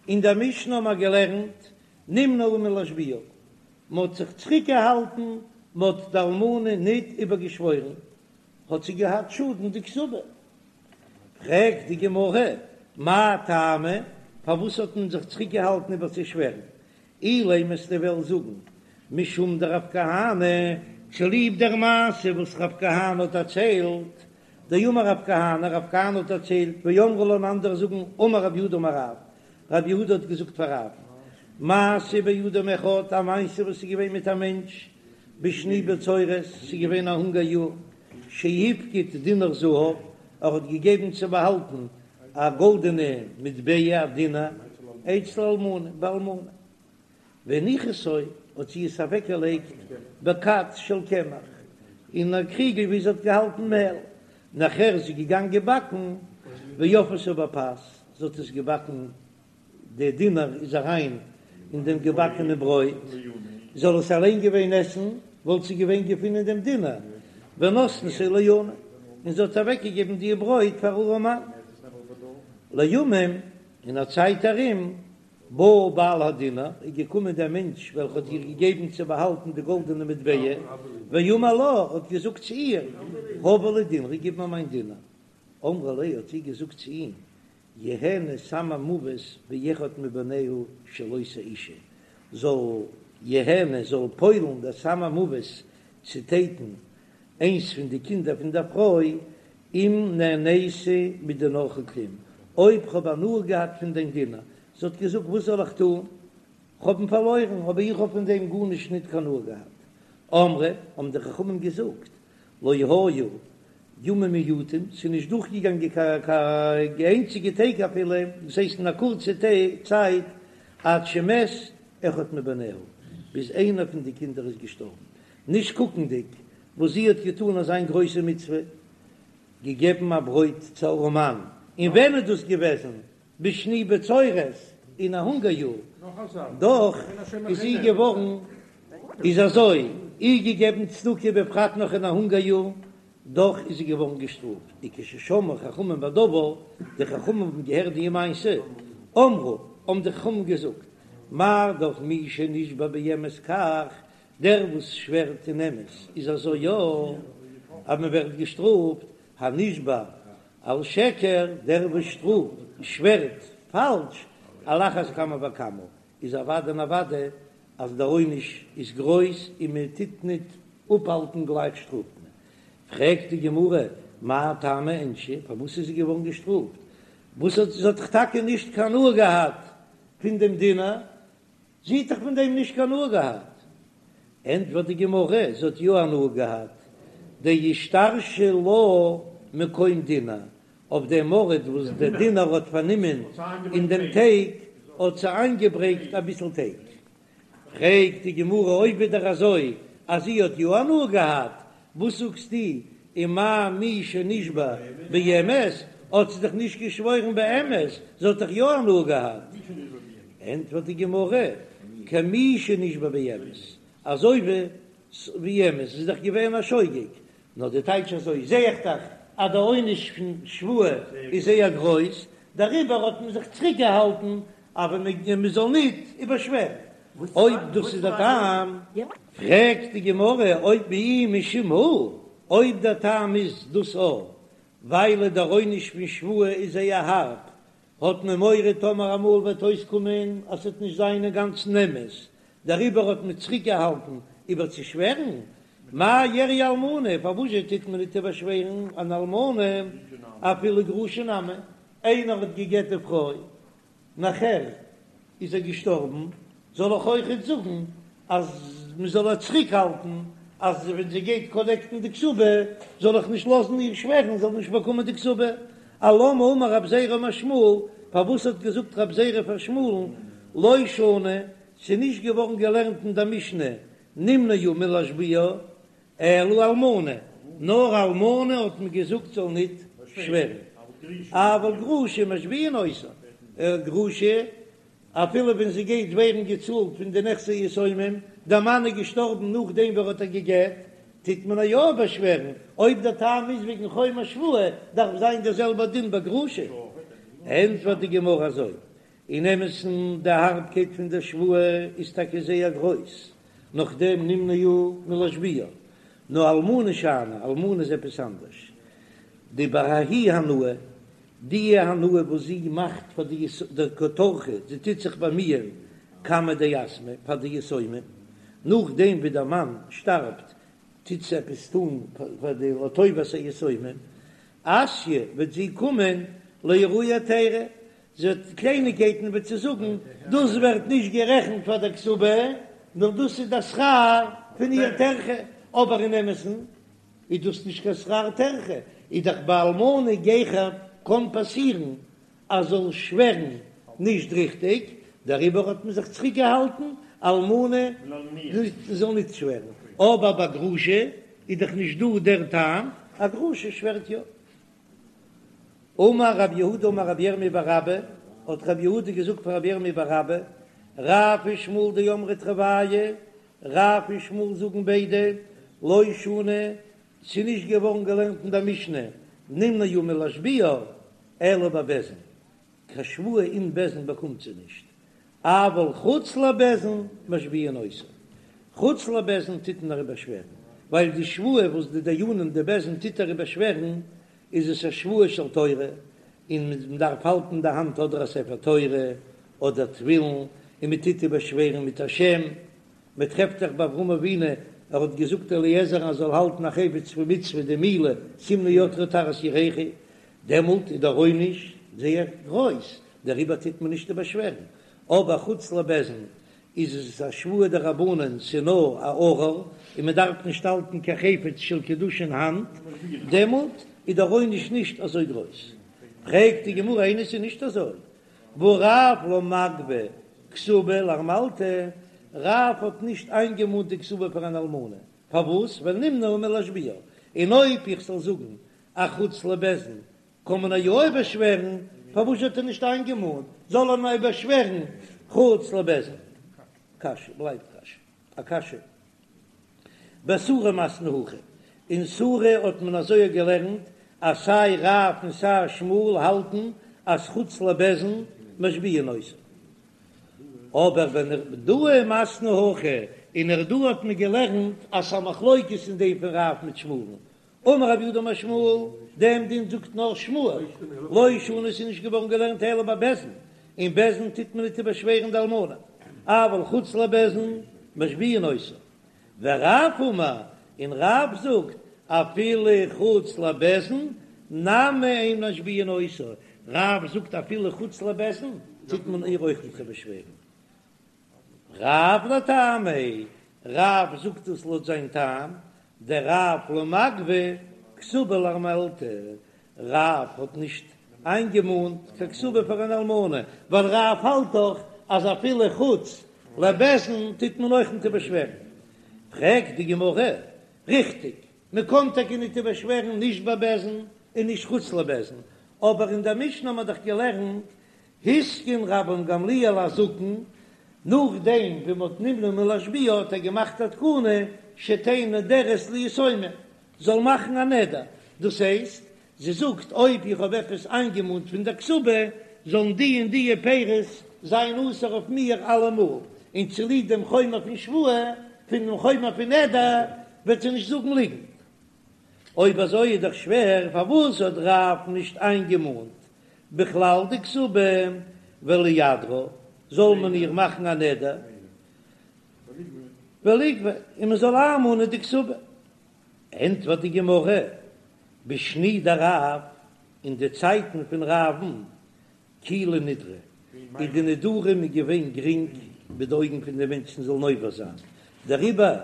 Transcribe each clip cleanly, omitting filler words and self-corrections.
אין דער משנה האבן מיר געלערנט נמנעו מלהשביעה, מען האט זיך צוריקגעהאלטן, מען האט די אלמנה ניט איבערגעשוואוירן, האט זי געהאט שאדן די כתובה. פרעגט די גמרא, מאי טעמא, פארוואס האט מען זיך צוריקגעהאלטן איבערצושווערן? אילימא וועסטו וועלן זאגן משום דרב כהנא, צוליב דער מעשה וואס רב כהנא האט דערציילט, דאמר רב כהנא, רב כהנא האט דערציילט, ואמרי לה און אנדערע זאגן, אמר רב יהודה אמר רב, רב יהודה האט געזאגט פאר רב, מעשה באדם אחד, א מעשה וואס איז געווען מיט א מענטש, בשני בצורת, ס'איז געווען א הונגער יאר, שהפקיד דינר זהב, ער האט געגעבן צו באהאלטן א גאלדענע מטבע, א דינר, אצל אלמנה, ביי אלמנה. והניחתו, האט זי עס אוועקגעלייגט בכד של קמח, אין א קריגל ווי זי האט געהאלטן מעל. נאכער איז זי געגאנגען באקן, ואפאתו בפת, זי האט עס געבאקן די דינר איז אריין אין דעם געבאקענע ברויט, זאל עס אליין געווען עסן, וואלט זי געווען געפונען דעם דינר, ונתנתו לעני, און זי האט אוועקגעגעבן די ברויט פאר ארעמאן. לימים, אין א צייט ארום, בא בעל הדינר, איז געקומען דער מענטש וועלכע האט איר געגעבן צו באהאלטן די גאלדענע מטבע, ואמר לה, האט געזאגט צו איר, הבי לי דינרי, גיב מיר מיין דינר. אמרה ליה, האט זי געזאגט צו אים, יהנה סם המוות באחד מבניה של אותה אשה, זאל יהנה זאל פועל'ן דער סם המוות צו טייטן איינס פון די קינדער פון דער פרוי, אם נהניתי מדינרך כלום, אויב כ'האב הנאה געהאט פון דיין דינר, זי האט געזאגט וואס זאל איך טון, כ'האב אים פארלוירן, אבער איך האב פון דעם גארנישט ניט קיין הנאה געהאט. אמרו, האבן די חכמים געזאגט, לא היו ימים מועטים, ס'איז נישט דורכגעגאנגען קיין איינציגע טעג אפילו, דאס הייסט אין א קורצע צייט, עד שמת אחד מבניה, ביז איינער פון די קינדער איז געשטארבן, נישט קוקנדיג וואס זי האט געטאן אזיין גרויסע מצוה, געגעבן א ברויט צו ארעמאן, און ווען איז דאס געוועזן? בשני בצורת, אין א הונגער יאר, דאך איז זי געווארן, איז אזוי, איר געגעבן צדקה בפרט נאך אין א הונגער יאר, דאך איז זי געווארן געשטראפט, וכששמעו חכמים בדבר, די חכמים האבן געהערט די מעשה, אמרו, האבן די חכמים געזאגט, מה דאך מי שנשבע באמת כך, דער וואס שווערט אין אמת איז אזוי יא, אז מען ווערט געשטראפט, הנשבע על שקר, דער וואס שטראפט, שווערט, פאלש, על אחת כמה וכמה, איז אוודאי און אוודאי אז דער עונש איז גרויס און מען טוט ניט אפהאלטן גלייך שטראפט מען. פרעגט די גמרא, מאי טעמא איענשה, פארוואס איז זי געווארן געשטראפט? וואס האט זי האט דאך טאקע נישט קיין הנאה געהאט פון דעם דינר, זי האט דאך פון דעם נישט קיין הנאה געהאט. ענטפערט די גמרא, זי האט יא הנאה געהאט, דאישתרשי לה מקום דינר, אויף דעם ארט וואס דער דינר האט פארנומען אין דעם טייג, האט זי איינגעברענגט אביסל טייג. פרעגט די גמרא, אויב ווידער אזוי אז זי האט יא הנאה געהאט, וואס זאגסטו ומאי מי שנשבע באמת, האט זי דאך נישט געשוואוירן באמת, זי האט דאך יא הנאה געהאט. ענטפערט די גמרא, כמי שנשבע באמת, אזוי ווי אמת, ס'איז דאך געווען א שוגג, נאר די טייטש אזוי זע איך דאך אז די עונש פון שבועה איז זייער גרויס, דעריבער האט מען זיך צוריק געהאלטן אבער מען זאל ניט איבערשווערן, אויב דאס איז דער טעם. פרעגט די גמרא אויב ואי משום הא, אויב דער טעם איז דאס א ווייל דער עונש פון שבועה איז זייער הארב, האט מען מורא טאמער אמאל וועט אויסקומען אז ס'וועט נישט זיין אינגאנצן אמת, דעריבער האט מען צוריקגעהאלטן איבערצושווערן, מאי איריא אלמנה, פארוואזשע טוט מען ניט איבערשווערן אן אלמנה אפילו גרושה נמי, איינער האט גע'גט די פרוי, נאכער איז ער געשטארבן, זאל איך אויכעט זאגן אז מען זאל איר צוריקהאלטן אז ווען זי גייט קאלעקטן די כתובה זאל איך נישט לאזן איר שווערן זאל נישט באקומען די כתובה? אלמה אמר רב זירא אמר שמואל, פארוואס האט געזאגט רב זירא פאר שמואל'ן לא שנו, ס'איז נישט געווארן געלערנט אין דער משנה נמנעו מלהשביע אלא אלמנה, נאר אלמנה האט מען געזאגט זאל ניט שווערן, אבל גרושה משביעין אותה, גרושה אפילו ווען זי גייט ווערן געצאלט פון די נכסי יתומים, דער מאן איז געשטארבן נאכדעם ווי ער האט איר גע'גט, טוט מען איר יא באשווערן, אויב דער טעם איז וועגן חומר שבועה, דארף זיין דער זעלבער דין ביי גרושה. ענטפערט די גמרא אזוי. אין אמת'ן די הארבקייט פון דער שבועה איז טאקע זייער גרויס, נאכדעם נמנעו מלהשביעה, נאר אלמנה שאני, אלמנה איז עפעס אנדערש, דבההיא הנאה, די הנאה וואס זי מאכט פאר די דקא טרחא, זי טוט זיך באמיען קמי דיתמי פאר די יתומים, נאכדעם ווי דער מאן שטארבט טוט זי עפעס טון פאר די לטובת היתומים, אתיא וועט זי קומען לאיערויי היתירא, זי וועט קלייניגקייטן וועט זי זאגן, דאס ווערט נישט גערעכנט פאר דער כתובה, נאר דאס איז דער שכר פון איר טרחה, אבער אין אמת'ן איז דאס נישט קיין שכר טרחה, איז דאך ביי אלמנה גיכער קען פאסירן אז זאל שווערן נישט ריכטיג, דעריבער האט מען זיך צוריק געהאלטן אלמנה זאל נישט שווערן, אבער ביי גרושה איז דאך נישט דא דער טעם, א גרושה שווערט יא. אמר רב יהודה אמר רבי ירמי' בר אבא, האט רב יהודה געזאגט פאר רבי ירמי' בר אבא, רב ושמואל דאמרי תרוייהו, רב און שמואל זאגן ביידע, לא שנו, ס'איז נישט געווארן געלערנט אין דער משנה, נמנעו מלהשביעה, אלא בבית דין, קיין שבועה אין בית דין באקומט זי נישט, אבל חוץ לבית דין משביעין אותה, חוץ לבית דין טוט מען איר איבערשווערן, ווייל די שבועה וואס די דיינים די בית דין טוט איר איבערשווערן, איז עס א שבועה של תורה, און מען דארף האלטן אין די האנט אדער א ספר תורה אדער תפילין, און מען טוט איבערשווערן מיט א שם, מען טרעפט דאך ביי אברהם אבינו, ער האט געזאגט אליעזר אז ער זאל האלטן א חפץ פון מצוה די מילה שים נא ידך תחת ירכי, דעמאלט איז דער עונש זייער גרויס, דעריבער טוט מען נישט איבערשווערן, אבער חוץ לבית דין איז עס א שבועה דרבנן ס'נאר א ארור און מען דארף נישט האלטן קיין חפץ של קדושה אין האנט, דעמאלט איז דער עונש נישט אזוי גרויס. פרעגט די גמרא איני ס'איז נישט אזוי, והא רב לא מגבי כתובה לארמלתא, רב האט נישט איינגעמאנט די כתובה פאר אן אלמנה, פארוואס? ווייל נמנעו מלהשביעה, און אויב איך זאל זאגן אז חוץ לבית דין קען מען יא איבערשווערן, פארוואס האט ער נישט איינגעמאנט זאל ער נאר איבערשווערן חוץ לבית דין? קשיא בלייבט קשיא א קשיא. בסורא מתנו הכי, אין סורא האט מען אזוי געלערנט אז סיי רב און סיי שמואל האלטן אז חוץ לבית דין משביעין אותה. אבער בנהרדעא מתנו הכי, אין נהרדעא האט מען געלערנט אז ס'א מחלוקת אין דעם פון רב מיט שמואל'ן, אמר רב יהודה אמר שמואל, דעם דין זאגט נאר שמואל, לא שנו ס'איז נישט געווארן געלערנט אלא בבית דין, אין בית דין טוט מען ניט איבערשווערן די אלמנה, אבל חוץ לבית דין משביעין אותה. ורב אמר, און רב זאגט, אפילו חוץ לבית דין נמי אין משביעין אותה, רב זאגט אפילו חוץ לבית דין טוט מען איר אויך ניט איבערשווערן. רב לטעמיה, רב זאגט עס לויט זיין טעם, דרב לא מגבי כתובה לארמלתא, רב האט נישט איינגעמאנט קיין כתובה פאר אן אלמנה, ווייל רב האלט דאך אז אפילו חוץ לבית דין טוט מען אויך ניט איבערשווערן. פרעגט די גמרא, ריכטיג, מען קען טאקע ניט איבערשווערן נישט ביי בית דין און נישט חוץ לבית דין, אבער אין דער משנה האט מען דאך געלערנט התקין רבן גמליאל הזקן, נאכדעם ווי מ'האט נמנע מלהשביע האט ער געמאכט א תקנה שתהא נודרת ליתומים, זאל מאכן א נדר, דאס הייסט, זי זאגט אויב איך האב עפעס איינגעמאנט פון דער כתובה, זאלן די און די פירות זיין אסור אויף מיר אלעמאל, און צוליב דעם חומר פון שבועה, פון דעם חומר פון נדר, וועט זי נישט זאגן ליגנט. אויב אזוי איז דאך שווער, פארוואס האט רב נישט איינגעמאנט בכלל די כתובה ולידרה, זאל מען איר מאכן א נדר וליגבה און מען זאל איינמאנען די כתובה? ענטפערט די גמרא, בשני דרב, אין די צייטן פון רב'ן, קילי נדרי, איז די נדרים איז געווען גרינג ביי די אויגן פון די מענטשן זאלן עובר זיין, דעריבער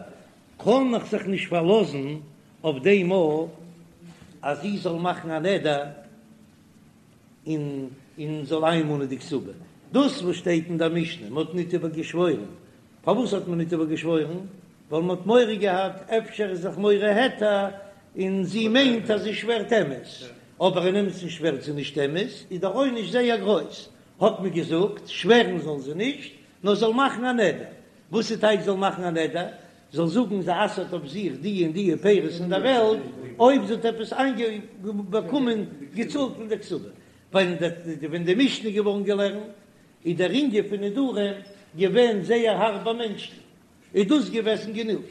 קען איך זיך נישט פארלאזן אויף דעם מאל אז זי זאל מאכן א נדר און און זאל איינמאנען די כתובה. דאס וואס שטייט אין דער משנה, מען האט ניט איבערגעשוואוירן, פארוואס האט מען ניט איבערגעשוואוירן? ווייל מען האט מורא געהאט אפשר איז זיך מורה היתר און זי מיינט אז זי שווערט אמת, אבער אין אמת'ן שווערט זי נישט אמת, איז דער עונש זייער גרויס, האט מען געזאגט, שווערן זאל זי נישט, נאר זאל מאכן א נדר. וואס איז טייטש זאל מאכן א נדר? זאל זאגן זי אסר'ט אויף זיך די און די פירות אין דער וועלט, אויב זי האט עפעס איינגעבאקומען געצאלט פון דער כתובה. ווייל ווען די משנה איז געווארן געלערנט. איז דער ענין פון נדרים געווען זייער הארב ביי מענטשן, איז דאס געוועזן גענוג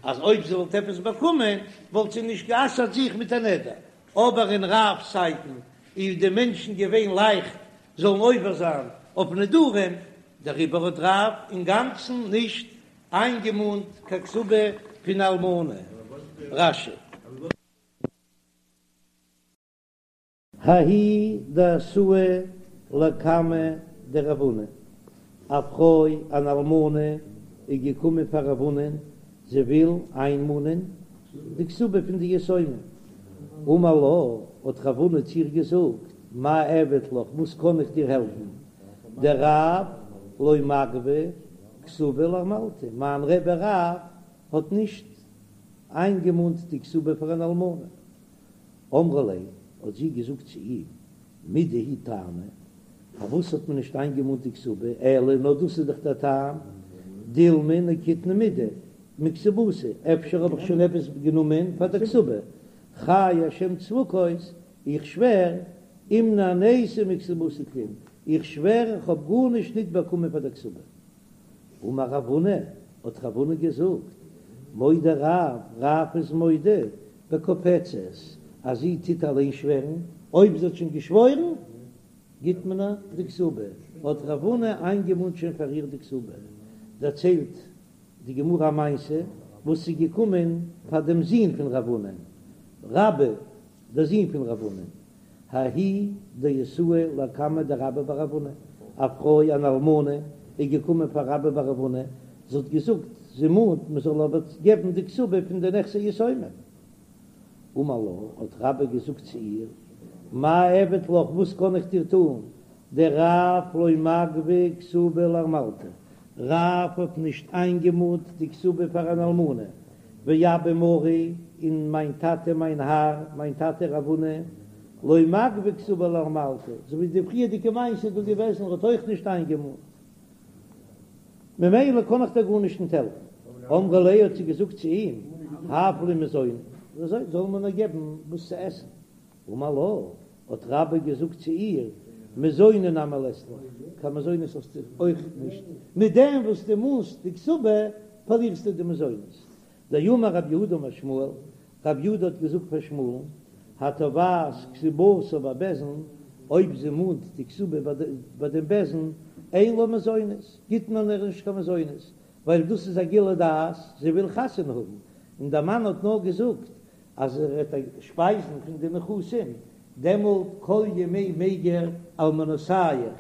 אז אויב זי וואלט עפעס באקומען וואלט זי נישט גע'אסר'ט זיך מיט א נדר, אבער אין רב'ס צייטן איז די מענטשן געווען לייכט זאלן עובר זיין אויף נדרים, דעריבער האט רב אינגאנצן נישט איינגעמאנט קיין כתובה פון אלמנה. רש"י. ההיא דאתאי לקמיה דרב הונא, א פרוי אן אלמנה איז געקומען פאר רב הונא'ן, זי וויל איינמאנען די כתובה פון די יתומים. אמר לה, האט רב הונא צו איר געזאגט, מאי אעביד לך, וואס קען איך דיר העלפן, דרב לא מגבי כתובה לארמלתא, מיין רבי רב האט נישט איינגעמאנט די כתובה פאר אן אלמנה. אמרה ליה, האט זי געזאגט צו אים, מידי הוא טעמא, פארוואס האט מען נישט איינגעמאנט די כתובה, אלא נאר דאס איז דאך דער טעם, דילמא נקיטנא מידי מכתובתי, אפשר האב איך שוין עפעס גענומען פאר דער כתובה, חי השם צבקות, איך שווער, אם נהניתי מכתובתי כלום, איך שווער איך האב גארנישט ניט באקומען פאר דער כתובה. אמר רב הונא, האט רב הונא געזאגט, מודה רב, רב איז מודה, בקופצת, אז זי טוט אליין שווערן, אויב זי האט שוין געשוואוירן, גיט מען איר די כתובה, האט רב הונא איינגעמאנט שוין פאר איר די כתובה. דערציילט די גמרא א מעשה וואס איז געקומען פאר דעם זון פון רב הונא, רבה, דער זון פון רב הונא, ההיא דאתאי לקמיה דרבה בר רב הונא, א פרוי אן אלמנה איז געקומען פאר רבה בר רב הונא, זי האט געזאגט זי מאנט מען זאל איר געבן די כתובה פון די נכסי יתומים. אמר לה, האט רבה געזאגט צו איר, מאי אעביד לך, וואס קען איך דיר טאן, דרב לא מגבי כתובה לארמלתא, רב האט נישט איינגעמאנט די כתובה פאר אן אלמנה, ואבא מרי, און מיין טאטע מיין האר, מיין טאטע רב הונא, לא מגבי כתובה לארמלתא, אזוי ווי די פריערדיגע מעשה איז דא געוועזן, ער האט אויך נישט איינגעמאנט, ממילא קען איך דיר גארנישט נישט העלפן. אמרה ליה האט זי געזאגט צו אים, הב לי מזוני, אזוי זאל מען מיר געבן וואס צו עסן. אמר לה, האט רבה געזאגט צו איר, מזוני נמי לית לך, קיין מזונות האסטו אויך נישט, מיט דעם וואס דו מאנסט די כתובה פארלירסטו די מזונות. דאמר רב יהודה אמר שמואל, רב יהודה האט געזאגט פאר שמואל'ן, התובעת כתובתה בבית דין, אויב זי מאנט די כתובה ביי דעם בית דין, אין לה מזונות, גיט מען איר נישט קיין מזונות, ווייל דאס איז א גילוי דעת, זי וויל חתונה האבן, און דער מאן האט נאר געזאגט אז ער וועט איר שפייזן פון די נכסים, דעמאלט כל ימי מיגר אלמנותיך,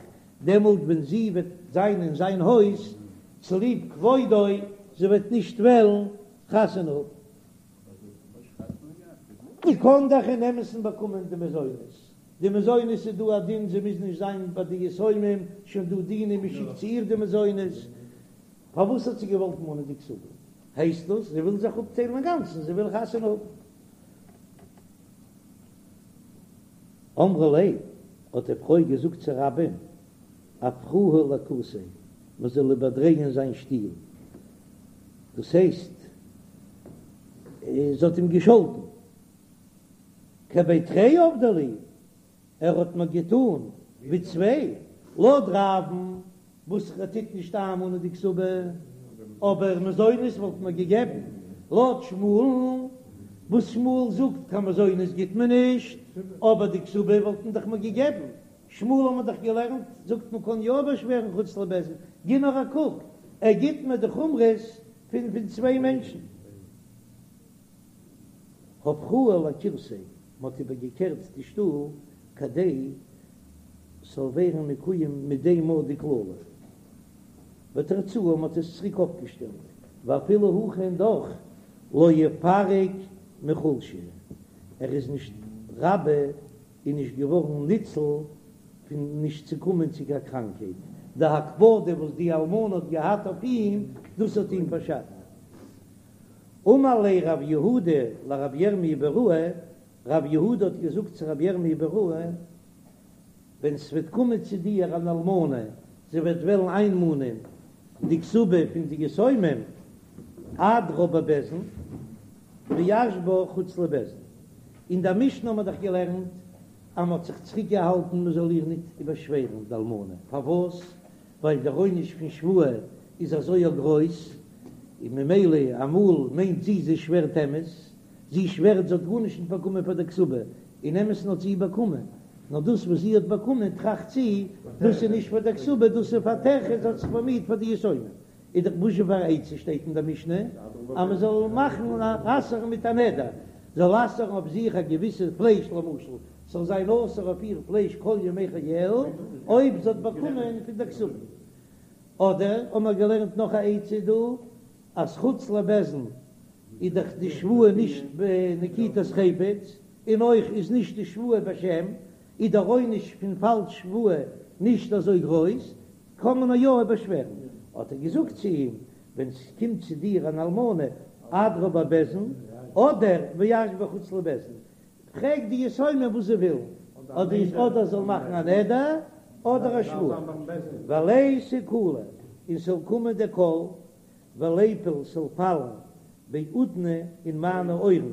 דעמאלט ווען זי וועט זיין אין זיין הויז, צוליב כבודו, זי וועט נישט וועלן חתונה האבן. זי קען דאך אין אמת'ן באקומען די מזונות, די מזונות איז דא א דין זי מוז נישט זיין ביי די יתומים, שוין דא דינים מען שיקט צו איר די מזונות, פארוואס האט זי געוואלט מאנען די כתובה? הייסט דאס זי וויל זיך אפטיילן אינגאנצן, זי וויל חתונה האבן. אמרה ליה, האט די פרוי געזאגט צו רבה'ן, אפכוה לכורסיה, מען זאל איבערדרייען זיין שטיל, דאס הייסט, זי האט אים געשאלטן, כבי תרי עבדי לי, ער האט מיר געטאן ווי צוויי, לויט רב'ן וואס ער טוט נישט איינמאנען די כתובה, אבער מזונות וואלט מען געגעבן, לויט שמואל'ן וואס שמואל זאגט קיין מזונות גיט מען נישט, אבער די כתובה וואלט מען דאך מיר געגעבן, שמואל האט מען דאך געלערנט זאגט מען קען יא באשווערן חוץ לבית דין, גיב נאר א קוק, ער גיט מיר די חומרות פון פון צוויי מענטשן. הפכוה לכורסיה, מען האט איבערגעקערט די שטול כדי ס'זאל ווערן מקוים מיט דעם מאל די קללה, ותרצוה, מען האט עס צוריק אויפגעשטעלט, ואפילו הכי און דאך לא איפרק מחולשא, ער איז נישט רבה איז נישט געווארן ניצול פון נישט צו קומען צו קיין קראנקהייט, די הקפדה וואס די אלמנה האט געהאט אויף אים, דאס האט אים פארשאדט. אמר ליה רב יהודה לרב ירמי' ביראה, רב יהודה האט געזאגט צו רב ירמי' ביראה, ווען ס'וועט קומען צו דיר אן אלמנה, זי וועט וועלן איינמאנען די כתובה פון די יתומים, אדרה בבית דין ואשבה חוץ לבית דין. אין דער משנה האט מען דאך געלערנט. אז מ'האט זיך צוריק געהאלטן מ'זאל איר ניט איבערשווערן די אלמנה, פארוואס? ווייל דער עונש פון שבועה איז אזוי א גרויס, און ממילא אמאל מיינט זי זי שווערט אמת, זי שווערט זי האט גארנישט ניט באקומען פאר דער כתובה, אין אמת'ן האט זי באקומען, נאר דאס וואס זי האט באקומען טראכט זי, דאס איז נישט פאר דער כתובה, דאס איז פאר טרחה, זי האט זיך באמיהט פאר די יתומים. איז דאך וואזשע פאר א עצה שטייט אין דער משנה אז מען זאל מאכן אסר'ן מיט א נדר, זאל אסר'ן אויף זיך א געוויסע פלייש למשל, ס'זאל זיין אסור אויף איר פלייש כל ימי חייה אויב זי האט באקומען פון דער כתובה. אדער האבן מיר געלערנט נאך א עצה דא, אז חוץ לבית דין איז דאך די שבועה נישט בנקיטת חפץ, און אויך איז נישט די שבועה בשם, איז דער עונש פון פאלש שבועה נישט אזוי גרויס, קען מען יא איבערשווערן. האט ער געזאגט צו אים, ווען ס'קומט צו דיר אן אלמנה, אדרה בבית דין, אדער ואשביע חוץ לבית דין, פרעג די יתומים וואס זיי ווילן, אדער אדער זאל מאכן א נדר, אדער א שבועה. וליתי קלא, און ס'זאל קומען דער קול, וליפול ס'זאל פאלן באודני אין מיינע אויערן,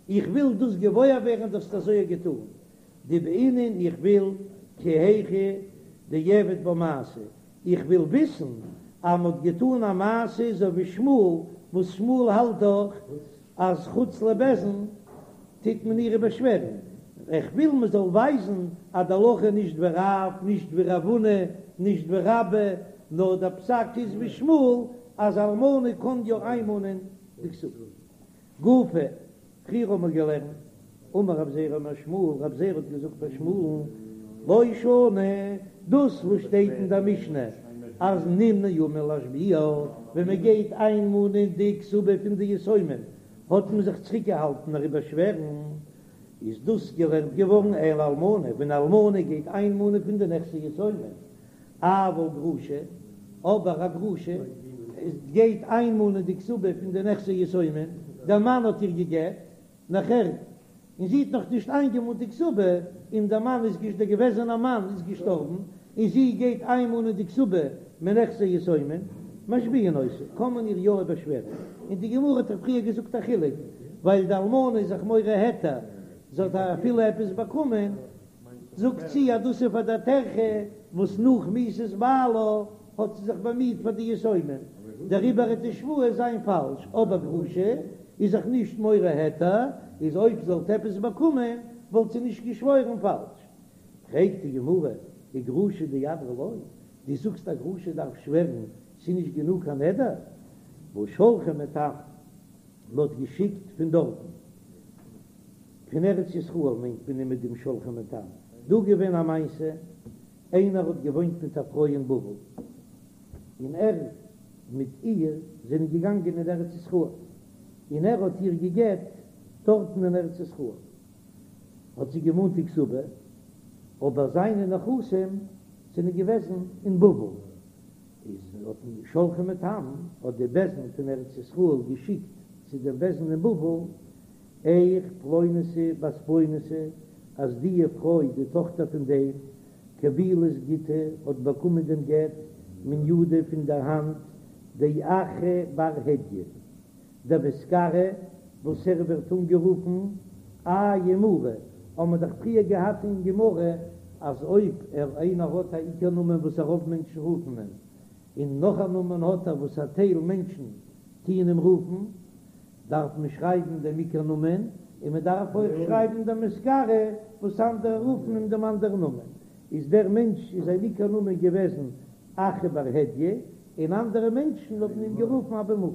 איך וויל דאס געוואויר ווערן דו האסט אזוי געטאן, דבעינא איך וויל כי היכי דאיעביד בה מעשה, איך וויל וויסן אז מ'האט געטאן א מעשה אזוי ווי שמואל, וואס שמואל האלט דאך אז חוץ לבית דין טוט מען איר איבערשווערן, איך וויל מ'זאל ווייזן אז די הלכה איז נישט ווי רב, נישט ווי רב הונא, נישט ווי רבה, נאר דער פסק איז ווי שמואל אז אלמנה קען יא איינמאנען די כתובה. גופא, פריער האבן מיר געלערנט, אמר רב זירא אמר שמואל, רב זירא האט געזאגט פאר שמואל'ן, לא שנו, דאס וואס שטייט אין דער משנה אז נמנעו מלהשביע, ווען מען גייט איינמאנען די כתובה פון די יתומים, האט מען זיך צוריקגעהאלטן איר איבערשווערן, איז דאס געלערנט געווארן אלא אלמנה, ווען אלמנה גייט איינמאנען פון די נכסי יתומים, אבל גרושה, אבער א גרושה גייט איינמאנען די כתובה פון די נכסי יתומים, דער מאן האט איר גע'גט, נאכער, און זי האט נאך נישט איינגעמאנט די כתובה, און דער מאן איז געש דער געוועזענער מאן איז געשטארבן, און זי גייט איינמאנען די כתובה מנכסי יתומים, משביעין אותה, קען מען איר יא איבערשווערן, און די גמרא האט דאך פריער געזאגט א חילוק, ווייל די אלמנה איז זיך מורה היתר, זי האט אפילו עפעס באקומען, זאגט זי אז דאס איז פאר דער טרחה וואס נאך מיתת בעלה האט זי זיך באמיט פאר די יתומים, דעריבער וועט די שבועה זיין פאלש, אבער גרושה איז זיך נישט מורה היתר, איז אויב זי וואלט עפעס באקומען וואלט זי נישט געשוואוירן פאלש. פרעגט די גמרא, וגרושה דאדרה לא, דו זאגסט א גרושה דארף שווערן, ס'איז נישט גענוג קיין נדר? והא שלחו מתם, מ'האט געשיקט פון דארטן. פון ארץ ישראל מיינט מען מיט דעם שלחו מתם. דא געווען א מעשה, איינער האט געוואוינט מיט א פרוי אין בבל, און ער מיט איר זענען געגאנגען אין ארץ ישראל, און ער האט איר גע'גט דארטן אין ארץ ישראל, האט זי געמאנט די כתובה, אבער זיינע נכסים זענען געוועזן אין בבל, איז האט שלחו מתם, האט די בית דין פון ארץ ישראל געשיקט צו דעם בית דין אין בבל, איך פלוניתא בת פלוניתא, אז די פרוי די טאכטער פון דעם קבילת גיטא האט באקומען דעם גט מן ידא פון דער האנט דאחי בר הדיא דמתקרי וואס ער ווערט אנגערופן איה מרא, האבן מיר דאך פריער געהאט אין גמרא אז אויב ער איינער האט א עיקר נאמען וואס א רוב מענטשן רופן אים, און נאך א נאמען האט ער וואס א טייל מענטשן טוען אים רופן, דארף מען שרייבן דעם עיקר נאמען, און מען דארף אויך שרייבן דעם מתקרי וואס אנדערע רופן אים דעם אנדערן נאמען. איז דער מענטש איז זיין עיקר נאמען געוועזן אחי בר הדיא, און אנדערע מענטשן האבן אים גערופן אבא מרא.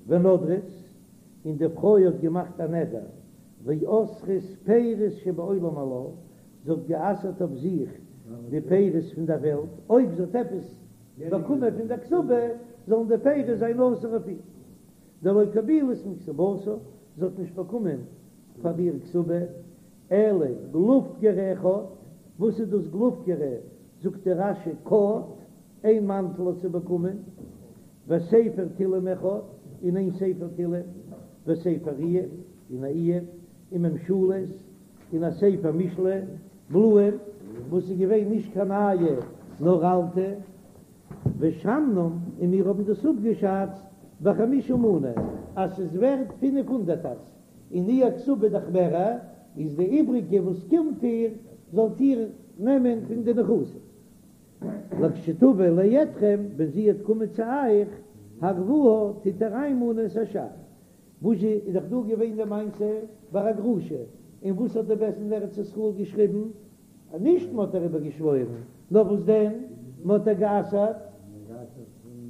ונדרת, און די פרוי האט געמאכט א נדר, ואסרת פירות שבעולם עלה, זי האט גע'אסר'ט אויף זיך די פירות פון דער וועלט, אויב זי האט עפעס באקומען פון דער כתובה, זאלן די פירות זיין אסור אויף איר. דלא קבילת מכתובתה, זי האט נישט באקומען פאר איר כתובה, אלא גלופקרא אחד, וואס איז דאס גלופקרא? זאגט דער רש"י קט, איין מאנטל האט זי באקומען, וספר תהלים אחד, און איין ספר תהלים, וספר איוב, און א איוב, וממשלות, און א ספר משלי, בלואים, וואס איז געווען נישט קיין נייע נאר אלטע. ושמנום, און מיר האבן דאס אפגעשאצט בחמישה מנה, אז ס'איז ווערט פינף הונדערטערס, און איר כתובה דאך מערער, איז די איבריגע וואס קומט איר. זאלט איר נעמען פון די נכסים. לכשתבא לידכם, ווען זי וועט קומען צו אייך, הרוה, טוט איר איינמאנען את השאר. וואס זשע איז דאך דא געווען די מעשה ביי א גרושה, און וואס האט די בית דין אין ארץ ישראל געשריבן? אז נישט מען האט איר איבערגעשוואוירן, נאר וואס דען, מען האט איר גע'אסר'ט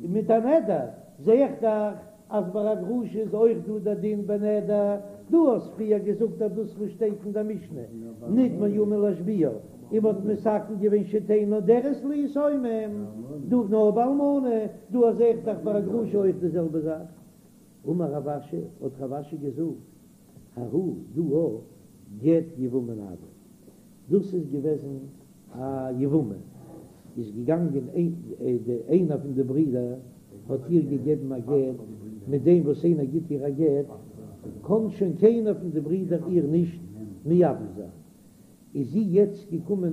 מיט א נדר, זע איך דאך אז ביי א גרושה איז אויך דא דער דין בנדר, דו האסט פריער געזאגט אז דאס וואס שטייט אין דער משנה נמנעה מלהשביעה, און מען האט מתקן געווען שתהא נודרת ליתומים, דא נאר ביי אלמנה, דא זע איך דאך ביי א גרושה אויך די זעלבע זאך. אמר רב אשי, האט רב אשי געזאגט, ההוא דא גט יבמין הוה, דאס איז געוועזן א יבמה, איז געגאנגען איינער פון די ברידער האט איר געגעבן א גט, מיט דעם וואס איינער גיט איר א גט קען שוין קיינער פון די ברידער איר נישט מייבם זיין, איז זי יעצט געקומען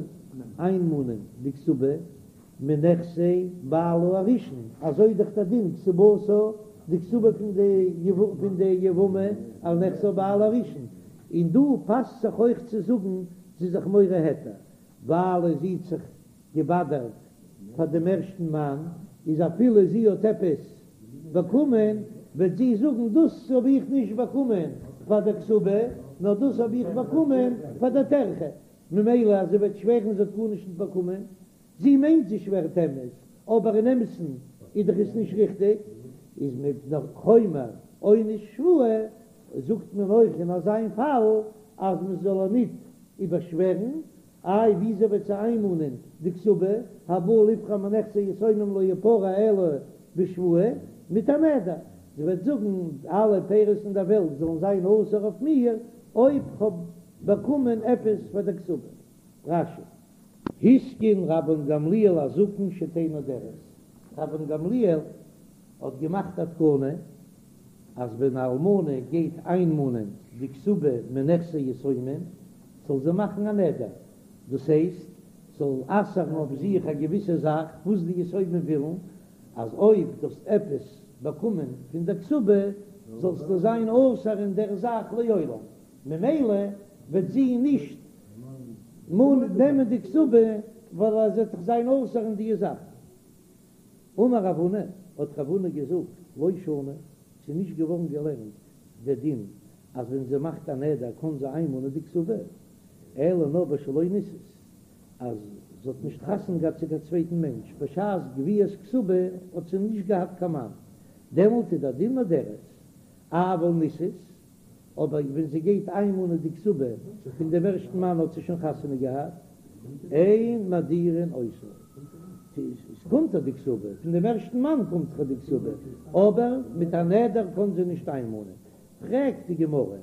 איינמאנען די כתובה מנכסי בעלה הראשון, אזוי איז דאך דער דין כתובתה, די כתובה פון די פון די יבמה על נכסי בעלה הראשון, און דא פאסט זיך אויך צו זאגן זי איז זיך מורה היתר, ווייל זי האט זיך געבאדערט פאר דעם ערשטן מאן, איז אפילו זי האט עפעס באקומען, וועט זי זאגן דאס האב איך נישט באקומען פאר דער כתובה, נאר דאס האב איך באקומען פאר דער טרחה, ממילא אז זי וועט שווערן זי האט גארנישט נישט באקומען, זי מיינט זי שווערט אמת, אבער אין אמת'ן איז דאך עס נישט ריכטיג, איז מפני חומר עונש שבועה, זאגט מען אויך אין אזיין פאל אז מען זאל איר ניט איבערשווערן, איי וויאזוי וועט זי איינמאנען די כתובה, הבא לפרוע מנכסי יתומים לא יפרע אלא בשבועה, מיט א נדר, זי וועט זאגן אלע פירות אין דער וועלט זאלן זיין אסור אויף מיר אויב כ'האב באקומען עפעס פאר דער כתובה. רש"י. התקין רבן גמליאל הזקן שתהא נודרת, רבן גמליאל האט געמאכט א תקנה אז ווען א אלמנה גייט איינמאנען די כתובה מנכסי יתומים זאל זי מאכן א נדר, דאס הייסט זאל אסר'ן אויף זיך א געוויסע זאך וואס די יתומים ווילן, אז אויב דו האסט עפעס באקומען פון דער כתובה זאלסטו זיין אסור אין דער זאך לעולם, ממילא וועט זי נישט נעמען די כתובה ווייל זי וועט דאך זיין אסור אין די זאך. אמר רב הונא, האט רב הונא געזאגט, לא שנו, ס'איז נישט געווארן געלערנט דער דין אז ווען זי מאכט א נדר קען זי איינמאנען די כתובה, אלא נאר בשלא נישאת, אז זי האט נישט חתונה געהאט צו קיין צווייטן מענטש, בשעת גביית כתובה האט זי נישט געהאט קיין מאן, דעמאלט איז דער דין נודרת, אבל נישאת, אבער ווען זי גייט איינמאנען די כתובה פון דעם ערשטן מאן האט זי שוין חתונה געהאט, אין מדירין אותה, עס קומט איר די כתובה, פון דעם ערשטן מאן קומט איר די כתובה, אבער מיט א נדר קען זי נישט איינמאנען. פרעגט די גמרא,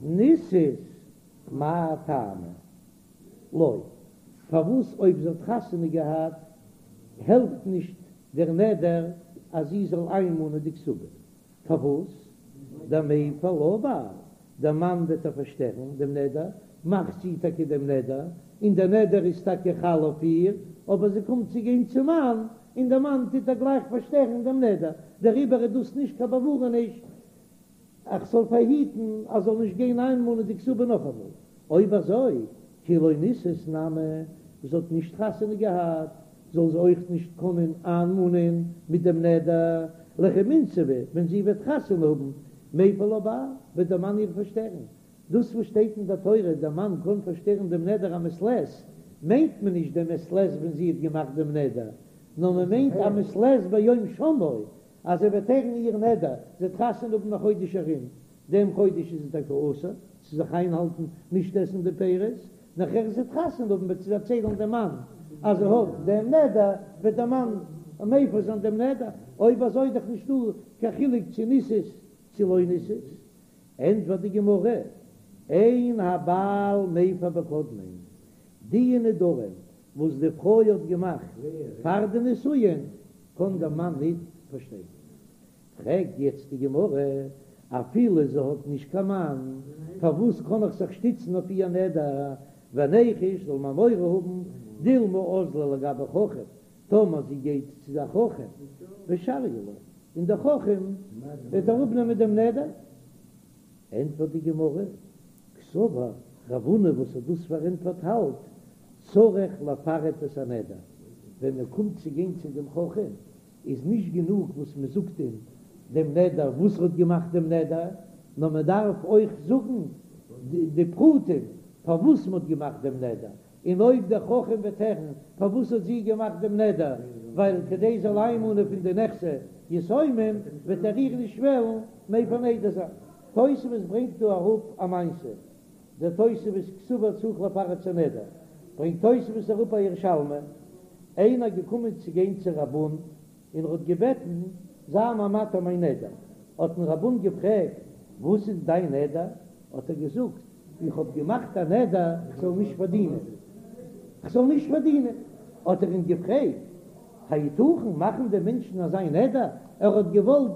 נישאת מאי טעמא לא, פארוואס אויב זי האט חתונה געהאט העלפט נישט דער נדר אז זי זאל איינמאנען די כתובה? פארוואס? דמיפר לה בעל, דער מאן וועט איר פארשטערן דעם נדר, מאכט זי טאקע דעם נדר, און דער נדר איז טאקע חל אויף איר, אבער זי קומט צו גיין צום מאן, און דער מאן טוט איר גלייך פארשטערן דעם נדר, דעריבער איז דאס נישט קיין באווארעניש איך זאל פארהיטן אז זאל נישט גיין איינמאנען די כתובה נאכאמאל. אויב אזוי, כי לא נישאת נמי, זי האט נישט חתונה געהאט, זאל זי אויך נישט קענען איינמאנען מיט דעם נדר, לכי מינסבא, ווען זי וועט חתונה האבן, מיפר לה בעל, וועט דער מאן איר פארשטערן. דאס וואס שטייט אין דער תורה, דער מאן קען פארשטערן דעם נדר א מעת לעת, מיינט מען נישט דעם מעת לעת ווען זי האט געמאכט דעם נדר, נאר מען מיינט א מעת לעת ביום שמעו, אז ער וועט הערן איר נדר, זי וועט חתונה האבן א חודש ארום, דעם חודש איז זי טאקע אסור צו זיך איינהאלטן נישט עסן די פירות, נאכער זי וועט חתונה האבן וועט זי דערציילן דעם מאן אז זי האט דעם נדר, וועט דער מאן מפר זיין דעם נדר, אויב אזוי איז דאך נישטא קיין חילוק צו נישאת צו לא נישאת. ענטפערט די גמרא, אין הבעל מפר בקודמין, די נדרים וואס די פרוי האט געמאכט פאר די נישואין קען דער מאן ניט פארשטערן. פרעגט יעצט די גמרא, אפילו זי האט נישט קיין מאן, פארוואס קען איך זיך שטיצן אויף איר נדר? וניחוש זאל מען מורא האבן, דילמא אזלא לגבי חכם, טאמער זי גייט צו דער חכם, ושריא לה, און דער חכם וועט אראפנעמען דעם נדר. ענטפערט די גמרא, קסבר, רב הונא וואס האט דאס פארענטפערט האלט. צריך לפרט את הנדר, ווען מען קומט צו גיין צו דעם חכם איז נישט גענוג וואס מען זאגט אים דעם נדר וואס ער האט געמאכט דעם נדר, נאר מען דארף אויך זאגן די פרטים פארוואס מען האט געמאכט דעם נדר, און אויב דער חכם וועט הערן פארוואס האט זי געמאכט דעם נדר, ווייל כדי זאל איינמאנען פון די נכסי יתומים, וועט ער איר נישט וועלן מפר נדר זיין. תוספות ברענגט דא אראפ א מעשה, דער תוספות קסבר צריך לפרט את הנדר, ברענגט תוספות אראפ א ירושלמי, איינער געקומען צו גיין צו רב און און ער האט געבעטן זיי מיר מתיר מיין נדר, האט אים רב און געפרעגט וואס איז דיין נדר, האט ער געזאגט איך האב געמאכט א נדר איך זאל נישט פארדינען, איך זאל נישט פארדינען, האט ער אים געפרעגט היתכן מאכן די מענטשן אזא נדר, ער האט געוואלט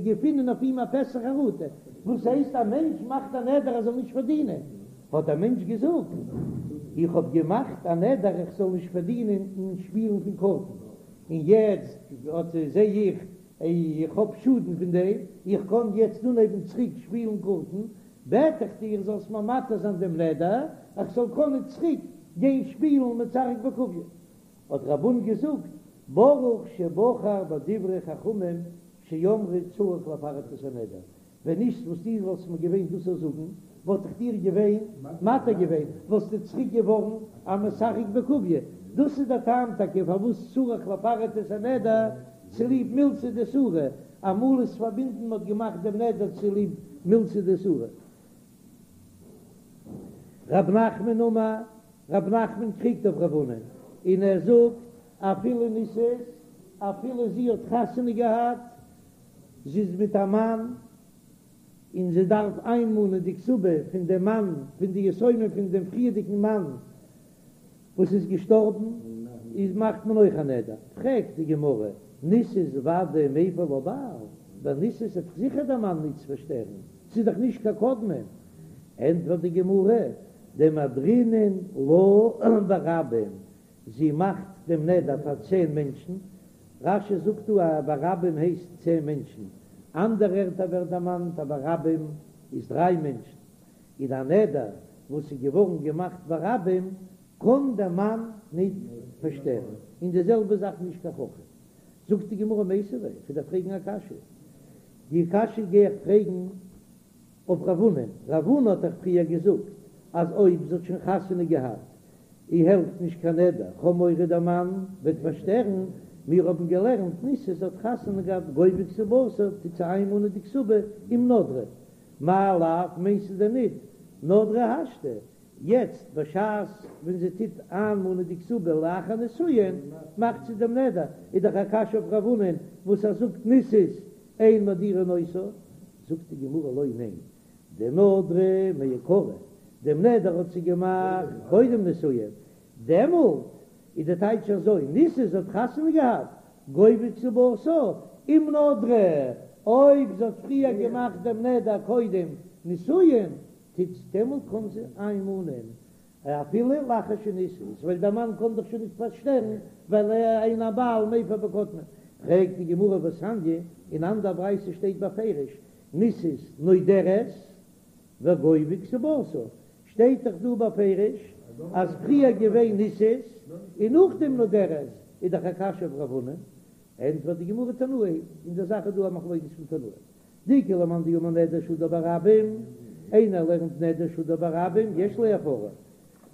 געפינען אויף אים א פתח חרטה, וואס הייסט א מענטש מאכט א נדר ער זאל נישט פארדינען, האט דער מענטש געזאגט איך האב געמאכט א נדר איך זאל נישט פארדינען אין שפילן פון קארטן, און יעצט אט זע איך איך האב שאדן פון דעם, איך קען יעצט אנהייבן צוריק שפילן קארטן, בעט איך דיר זאלסט מיר מתיר זיין דעם נדר איך זאל קענען צוריק גיין שפילן משחק בקוביא. האט רב און געזאגט, ברוך שבחר בדברי חכמים שאמרו צריך לפרט את הנדר, ווען נישט וואס דו וואלסט מיר געווען דאס צו זאגן, וואלט איך דיר געווען מתיר געווען, וואלסטו צוריק געווארן א משחק בקוביא, דאס איז דער טעם טאקע פארוואס צריך לפרט את הנדר, צוליב מילתא דאיסורא, אמאל איז פארבינדן מ'האט געמאכט דעם נדר צוליב מילתא דאיסורא. רב נחמן אמר, רב נחמן קריגט אויף רב הונא און ער זאגט אפילו נישאת, אפילו זי האט חתונה געהאט, זי איז מיט א מאן, און זי דארף איינמאנען די כתובה פון דעם מאן, פון די יתומים פון דעם פריערדיגן מאן וואס איז געשטארבן, איז מאכט מען אויך א נדר. פרעגט די גמרא, נישאת ודאי מיפר לה בעל, ביי נישאת וועט זיכער דער מאן נישט פארשטערן, ס'איז דאך נישט קיין קודמין. ענטפערט די גמרא, דמדרינן לה ברבים, זי מאכט דעם נדר פאר צען מענטשן, רש"י זאגט דא אז ברבים הייסט צען מענטשן, אנדערע ערטער ווערט דערמאנט אז ברבים איז דריי מענטשן, און א נדר וואס איז געווארן געמאכט ברבים קען דער מאן ניט פארשטערן, און די זעלבע זאך נישט קיין חכם. זאגט די גמרא מיתיבי, כ'וועל דיר פרעגן א קשיא, די קשיא גיי איך פרעגן אויף רב הונא, רב הונא האט דאך פריער געזאגט אז אויב זי האט שוין חתונה געהאט אי העלפט נישט קיין נדר, כ'האב מורא דער מאן וועט פארשטערן, מיר האבן געלערנט נישאת זי האט חתונה געהאט גובה כתובתה טוט זי איינמאנען די כתובה אם נדרה, מאי לאו מיינסטו דען ניט נדרה השתא, יעצט בשעת ווען זי טוט איינמאנען די כתובה לאחר נישואין מאכט זי דעם נדר, איז דאך א קשיא אויף רב הונא וואס ער זאגט נישאת אין מדירין אותה, זאגט די גמרא לא ניין, דנדרה מעיקרא, דעם נדר האט זי געמאכט קודם נישואין, דעמאלט איז די טייטש אזוי, נישאת זי האט חתונה געהאט, גובה כתובתה, אם נדרה, אויב זי האט פריער געמאכט דעם נדר קודם נישואין, טוט דעמאלט קען זי איינמאנען אפילו לאחר שנישאת, ווייל דער מאן קען דאך שוין נישט פארשטערן, ווייל אין הבעל מפר בקודמין. פרעגט די גמרא והתניא, אין אנדער ברייתא שטייט בפירוש נישאת נודרת וגובה כתובתה, שטייט דאך דא בפירוש אז פריער געווען נישאת און נאכדעם נודרת, איז דאך א קשיא אויף רב הונא, ענטפערט די גמרא תנאי, אין דער זאך איז דא א מחלוקת פון תנאים. דאיכא למאן דאמר נדר שהודר ברבים, איינער לערנט נדר שהודר ברבים יש לו הפרה,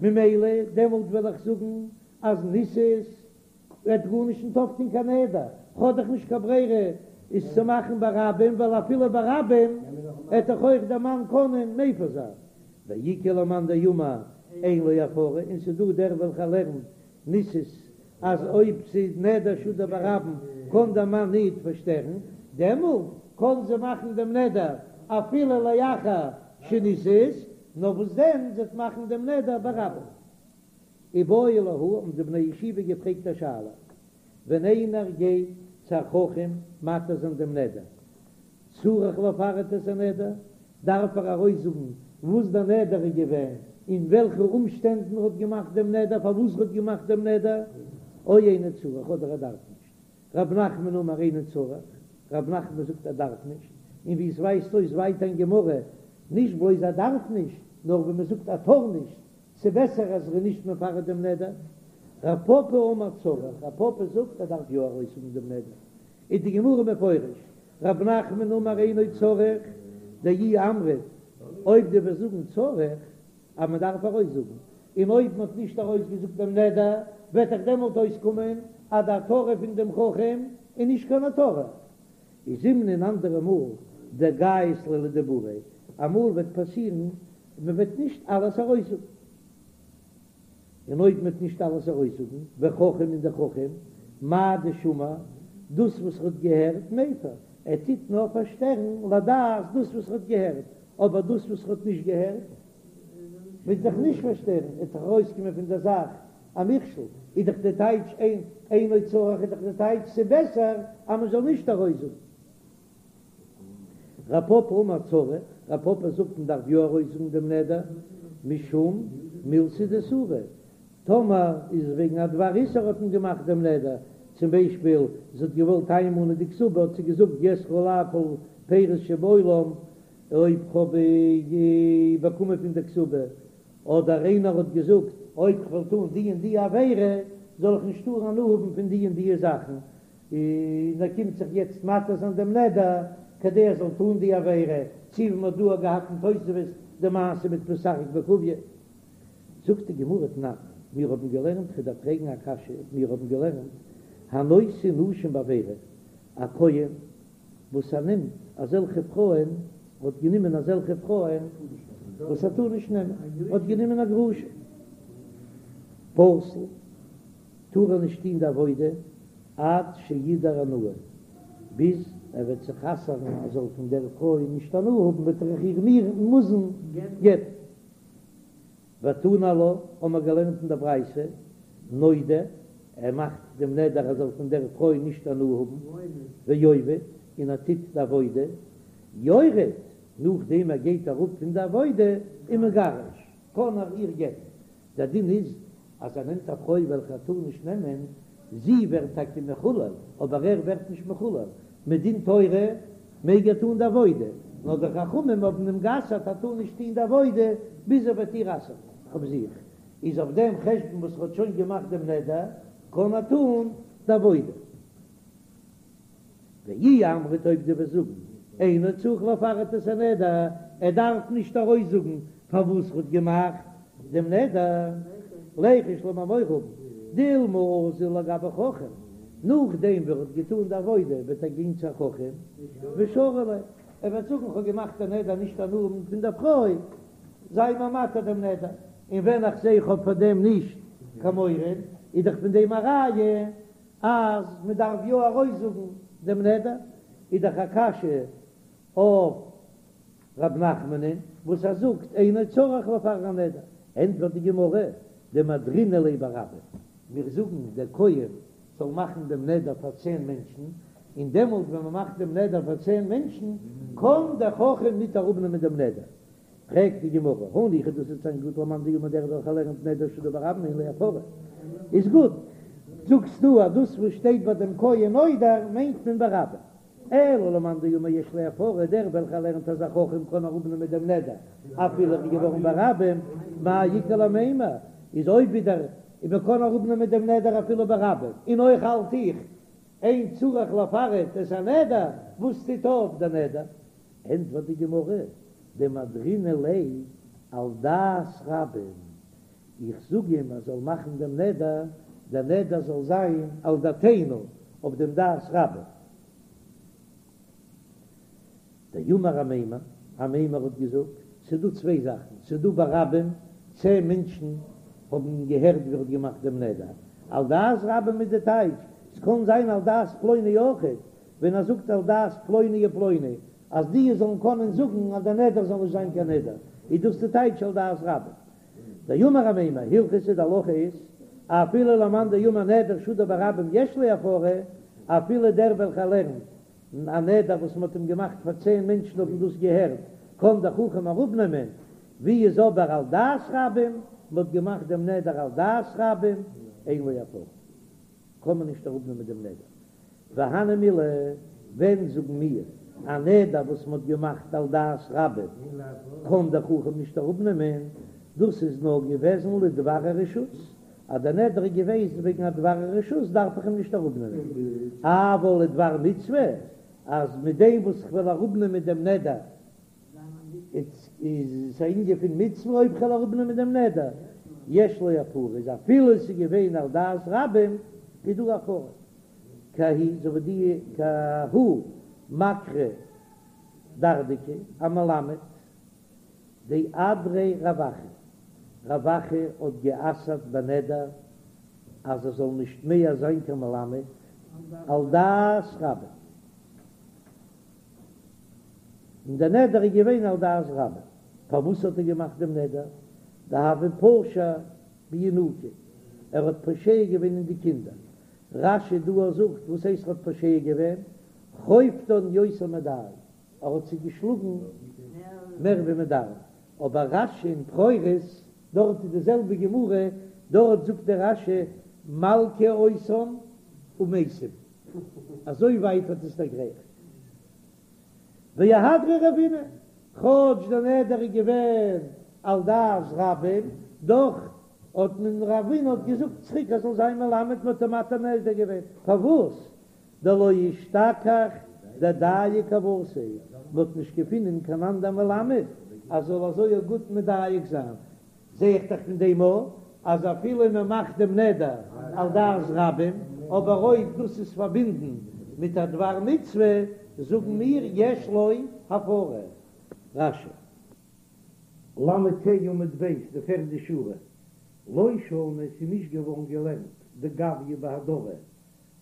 ממילא דעמאלט וועל איך זאגן אז נישאת וועט גארנישט נישט אויפטון קיין נדר, כ'האב דאך נישט קיין ברירה עס צו מאכן ברבים, ווייל אפילו ברבים עט דאך אויך דער מאן קענען מפר זיין, ואיכא למאן דאמר אין לו הפרה, און ס'דא דער וועלכער לערנט נישאת אז אויב ס'איז נדר שהודר ברבים קען דער מאן ניט פארשטערן, דעמאלט קען זי מאכן דעם נדר אפילו לאחר שנישאת, נאר וואס דען זי וועט מאכן דעם נדר ברבים. איבעיא להו האבן די בני ישיבה געפרעגט א שאלה, ווען איינער גייט צו א חכם מתיר זיין דעם נדר, צריך לפרט את הנדר, דארף ער ארויסזאגן וואס דער נדר איז געווען, אין וועלכע אומשטענדן ער האט געמאכט דעם נדר, פארוואס ער האט געמאכט דעם נדר, או אינו צריך, אדער ער דארף נישט. רב נחמן אמר אינו צריך, רב נחמן זאגט ער דארף נישט, און ווי עס ווייזט אויס ווייטער אין גמרא, נישט בלויז ער דארף נישט, נאר ווי מען זאגט ער טאר נישט. ס'בעסער אז ער איז נישט מפרט דעם נדר. רב פפא אמר צריך, רב פפא זאגט ער דארף יא ארויסזאגן דעם נדר. איז די גמרא מפרש, רב נחמן אמר אינו צריך, דאי אמרת, אויב דו וועסט זאגן צריך, אז מען דארף ארויסזאגן, און אויב מען האט נישט ארויסגעזאגט דעם נדר, וועט דאך דעמאלט אויסקומען אז די התרה פון דעם חכם איז נישט קיין התרה. איז זימנין אנדערע מאל דגייז ליה לדיבוריה, אמאל וועט פאסירן מען וועט נישט אלעס ארויסזאגן, און אויב מען וועט נישט אלעס ארויסזאגן, וחכם און דער חכם, מאי דשמע, דאס וואס ער האט געהערט, מיפר, ער טוט נאר פארשטערן לדעת דאס וואס ער האט געהערט, אבער דאס וואס ער האט נישט געהערט, וועט זיך נישט פארשטערן, עס וועט דאך ארויסקומען פון דער זאך א מכשול, איז דאך די טייטש אין אינו צריך איז דאך די טייטש ס'בעסער אז מען זאל נישט ארויסזאגן. רב פפא אמר צריך, רב פפא זאגט מען דארף יא ארויסזאגן דעם נדר, משום מילתא דאיסורא, טאמער איז וועגן א דבר איסור האט מען געמאכט דעם נדר, צום ביישפיל זי האט געוואלט איינמאנען די כתובה האט זי געזאגט יאסרו עלי כל פירות שבעולם אויב כ'האב באקומען פון די כתובה, אדער איינער האט געזאגט אויב כ'וועל טון די און די עבירה זאל איך נישט טארן הנאה האבן פון די און די זאכן, און ער קומט זיך יעצט מתיר זיין דעם נדר כדי ער זאל טון די עבירה, צו ווי מ'האט דא געהאט אין תוספות די מעשה מיט משחק בקוביא. זאגט די גמרא תנן, מיר האבן געלערנט, כ'דארף פרעגן א קשיא, מיר האבן געלערנט, הנושא נשים בעבירה, א כהן וואס ער נעמט אזעלכע פרויען, האט גענומען אזעלכע פרויען וואס ער טאר נישט נעמען, האט גענומען א גרושה, פסול, טאר ער נישט טון די עבודה עד שידור הנאה, ביז ער וועט זיך אסר'ן ער זאל פון דער פרוי נישט הנאה האבן וועט ער איר מוזן גט'ן. ותנא עלה, האבן מיר געלערנט אין דער ברייתא, נודר, ער מאכט דעם נדר ער זאל פון דער פרוי נישט הנאה האבן, ועובד, און ער טוט די עבודה, יורד, נאכדעם ער גייט אראפ פון די עבודה, ומגרש, קען ער איר גט'ן. דער דין איז אז ער נעמט א פרוי וועלכע ער טאר נישט נעמען, זי ווערט טאקע מחולל, אבער ער ווערט נישט מחולל, מדין תורה מעג ער טון די עבודה, נאר די חכמים האבן אים גע'אסר'ט ער טאר נישט טון די עבודה ביז ער וועט איר אסר'ן אויף זיך, איז אויף דעם חשבון וואס ער האט שוין געמאכט דעם נדר קען ער טון די עבודה. ואי אמרת אויב דו וועסט זאגן אינו צריך לפרט את הנדר, ער דארף נישט ארויסזאגן פארוואס ער האט געמאכט דעם נדר, ליחוש לאמיר מורא האבן, דילמא אזיל לגבי חכם, נאכדעם ווי ער האט געטאן די עבודה וועט ער גיין צו א חכם ושרי ליה, ער וועט זאגן כ'האב געמאכט א נדר נישט הנאה האבן פון דער פרוי, זיי מיר מתיר דעם נדר, און ווען איך זע איך האב פאר דעם נישט קיין מורא, איז דאך פון דעם א ראיה אז מען דארף יא ארויסזאגן דעם נדר, איז דאך א קשיא אויף ר' נחמנ'ן וואס ער זאגט אינו צריך לפרט הנדר, ענטפערט די גמרא, דמדרינן ליה ברבים, מיר זאגן דער כהן זאל מאכן דעם נדר פאר צען מענטשן, און דעמאלט ווען מען מאכט דעם נדר פאר צען מענטשן קען דער חכם ניט אראפנעמען דעם נדר, פרעגט די גמרא, הניחא דאס וועט זיין גוט למאן דאמר דער וועלכער לערנט נדר שהודר ברבים אין לו הפרה, איז גוט, זאגסטו אז דאס וואס שטייט ביי דעם כהן נודר מיינט מען ברבים, אלא למאן דאמר יש לו הפרה, דער וועלכער לערנט אז א חכם קען אראפנעמען דעם נדר אפילו ער איז געווארן ברבים, מאי איכא למימר, איז אויב ווידער מען קען אראפנעמען דעם נדר אפילו ברבים, און אויך האלט איך אין צריך לפרט את הנדר, וואס טוט אויף דער נדר? ענטפערט די גמרא, דמדרינן ליה על דעת רבים, איך זאג אים ער זאל מאכן דעם נדר, דער נדר זאל זיין על דעתינו, אויף דעם דעת רבים. דאמר אמימר, אמימר האט געזאגט, ס'איז דא צוויי זאכן, ס'איז דא ברבים, צען מענטשן האבן געהערט ווי ער האט געמאכט דעם נדר, על דעת רבים איז די טייטש, ס'קען זיין על דעת פלוני אויכעט, ווען ער זאגט על דעת פלוני ופלוני, אז די זאלן קענען זאגן אז דער נדר זאל נישט זיין קיין נדר, איז דאס די טייטש על דעת רבים. דאמר אמימר, הלכתא די הלכה איז, אפילו למאן דאמר נדר שהודר ברבים יש לו הפרה, אפילו דער וועלכער לערנט א נדר וואס מען האט אים געמאכט פאר צען מענטשן האבן דאס געהערט, קען דער חכם אראפנעמען, ווי איז אבער על דעת רבים, מען האט געמאכט דעם נדר על דעת רבים, אין לו הפרה, קען מען נישט אראפנעמען דעם נדר. והני מילי, ווען זאגן מיר א נדר וואס מען האט געמאכט על דעת רבים קען דער חכם נישט אראפנעמען? דאס איז נאר געוועזן לדבר הרשות, אז דער נדר איז געוועזן וועגן א דבר הרשות דארף איך אים נישט אראפנעמען, אבל לדבר מצוה, אז מיט דעם וואס איך וועל אראפנעמען דעם נדר איז עס א ענין פון מצוה, אויב כ'וועל אראפנעמען דעם נדר יש לו הפרה, איז אפילו עס איז געווען על דעת רבים איז דא הפרה, כי ההיא אזוי ווי די כי ההוא מקרי דרדקי א מלמד דאדריה רב אחא, רב אחא האט גע'אסר'ט בנדר אז ער זאל נישט מער זיין קיין מלמד על דעת רבים, און דער נדר איז געווען על דעת רבים, פארוואס האט ער געמאכט דעם נדר? דהוה פשע בינוקי, ער האט פושע געווען אין די קינדער, רש"י דא זאגט וואס הייסט ער האט פושע געווען? חובטן יותר מדאי, ער האט זיי געשלאגן מער ווי מען דארף, אבער רש"י אין בכורות, דארט איז די זעלבע גמרא, דארט זאגט דער רש"י מלקה אותן ומתים, אזוי ווייט האט עס דערגרייכט. ואהדריה רבינא, כאטש דער נדר איז געווען על דעת רבים, דאך האט מען רבינא האט געזאגט צוריק ער זאל זיין מלמד, מען האט אים מתיר נדר געווען, פארוואס? דלא אשתכח דדייק כוותיה, מען האט נישט געפינען קיין אנדער מלמד אז זאל אזוי גוט מדייק זיין, זע איך דאך פון דעם אויך אז אפילו מען מאכט דעם נדר על דעת רבים, אבער אויב דאס איז פארבינדן מיט א דבר מצוה, זאגן מיר יש לו הפרה. רש"י. ל"ה עמוד ב', די פערדע שורה, לא שנו, עס איז נישט געווארן געלערנט דגביא בהדרה,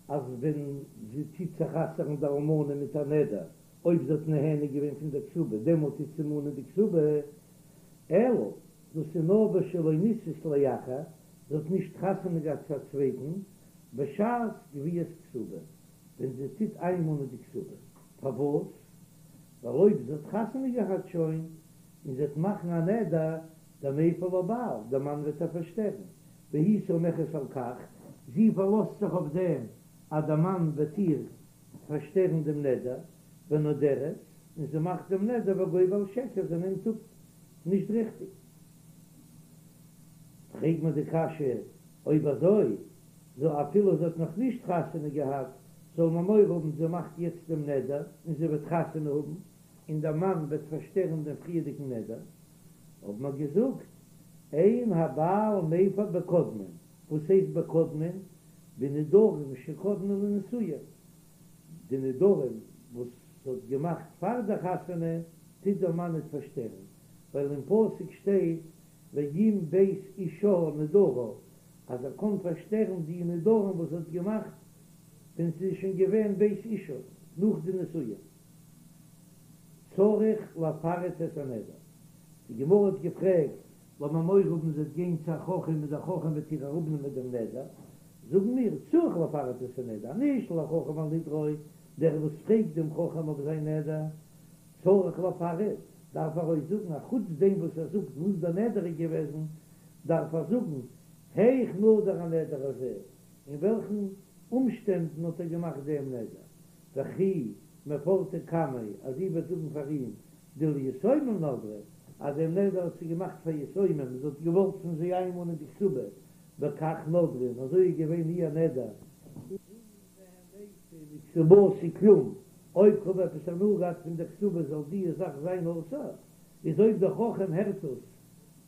אז ווען זי טוט זיך אסר'ן די אלמנה מיט א נדר, אויב זי האט נהנה געווען פון דער כתובה, דעמאלט טוט זי מאנען די כתובה, אלא דאס איז נאר בשלא נישאת לאחר, זי האט נישט חתונה געהאט צו א צווייטן, בשעת גביית כתובה, ווען זי טוט איינמאנען די כתובה. פארוואס? ווייל אויב זי האט חתונה געהאט שוין, און זי וועט מאכן א נדר, דמיפר לה בעל, דער מאן וועט איר פארשטערן, והיא סומכת על כך, זי פארלאזט זיך אויף דעם אז דער מאן וועט איר פארשטערן דעם נדר, ונודרת, און זי מאכט דעם נדר וגובה על שקר, זי נעמט אפ נישט ריכטיג. פרעג מיר די קשיא, אויב אזוי, זאל אפילו זי האט נאך נישט חתונה געהאט, זאל מען מורא האבן זי מאכט יעצט דעם נדר און זי וועט חתונה האבן, און דער מאן וועט פארשטערן דעם פריערדיגן נדר, האבן מיר געזאגט, אין הבעל מפר בקודמין, וואס הייסט בקודמין? בנדרים שקדמו לנישואין, די נדרים וואס זי האט געמאכט פאר דער חתונה טוט דער מאן ניט פארשטערן, ווייל אין פסוק שטייט ואם בית אישה נדרה, אז ער קען פארשטערן די נדרים וואס זי האט געמאכט ווען זי איז שוין געווען בית אישה, נאך די נישואין. צריך לפרט את הנדר. די גמרא האט געפרעגט, לאמיר מורא האבן זי וועט גיין צו א חכם און דער חכם וועט איר אראפנעמען דעם נדר, זאגן מיר, צריך לפרט את הנדר, הנשאל לחכם על נדרו, דער וואס פרעגט דעם חכם אויף זיין נדר, צריך לפרט, דארף ער אויך זאגן, א חוץ דעם וואס ער זאגט וואס דער נדר איז געוועזן, דארף ער זאגן, היאך נדר הנדר הזה, אין וועלכן אומשטענדן האט ער געמאכט דעם נדר, וכי מפרטא קמיה, אז זי וועט זאגן פאר אים דליתומים נדרה, אז דעם נדר האט זי געמאכט פאר יתומים, זי האט געוואלט פון זיי איינמאנען די כתובה, וכך נדרה, און אזוי איז געווען איר נדר. אם נהניתי מכתובתי כלום, אויב כ'האב עפעס הנאה געהאט פון דער כתובה זאל די זאך זיין אסור, איז אויב דער חכם הערט עס,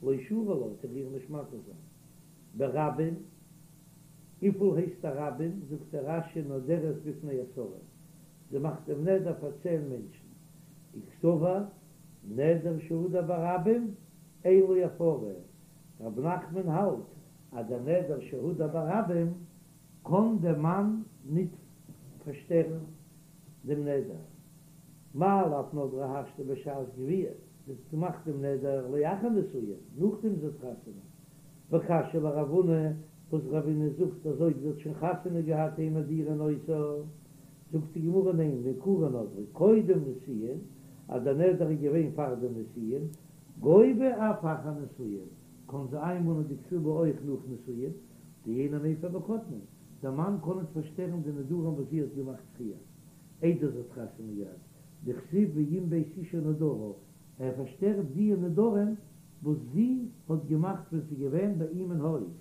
לא שרי לה, וועט ער איר נישט מתיר זיין. ברבים, וויפיל הייסט א רבים, זאגט דער רש"י נודרת בפני עשרה, זי מאכט דעם נדר פאר צען מענטשן, וקסבר נדר שהודר ברבים אין לו הפרה, רב נחמן האלט אז דער נדר שהודר ברבים קען דער מאן ניט פארשטערן דעם נדר, מאי לאו נדרה השתא בשעת גביה, זי האט געמאכט דעם נדר לאחר נישואין, נאכדעם זי האט חתונה, וקשיא לרב הונא, וואס רב הונא זאגט אז אויב זי האט שוין חתונה געהאט אין מדירין אותה, זאגט די גמרא ניין, מעיקרא נדרה קודם נישואין, אז דער נדר איז געווען פאר די נישואין, גובה אף אחר נישואין, קען זי איינמאנען די כתובה אויך נאך נישואין, דאינו מפר בקודמין, דער מאן קען ניט פארשטערן די נדרים וואס זי האט געמאכט פריער, איידער זי האט חתונה געהאט, דכתיב ואם בית אישה נדרה, ער פארשטערט די נדרים. וואס זי האט געמאכט ווען ס'איז געווען ביי אים אין הויז.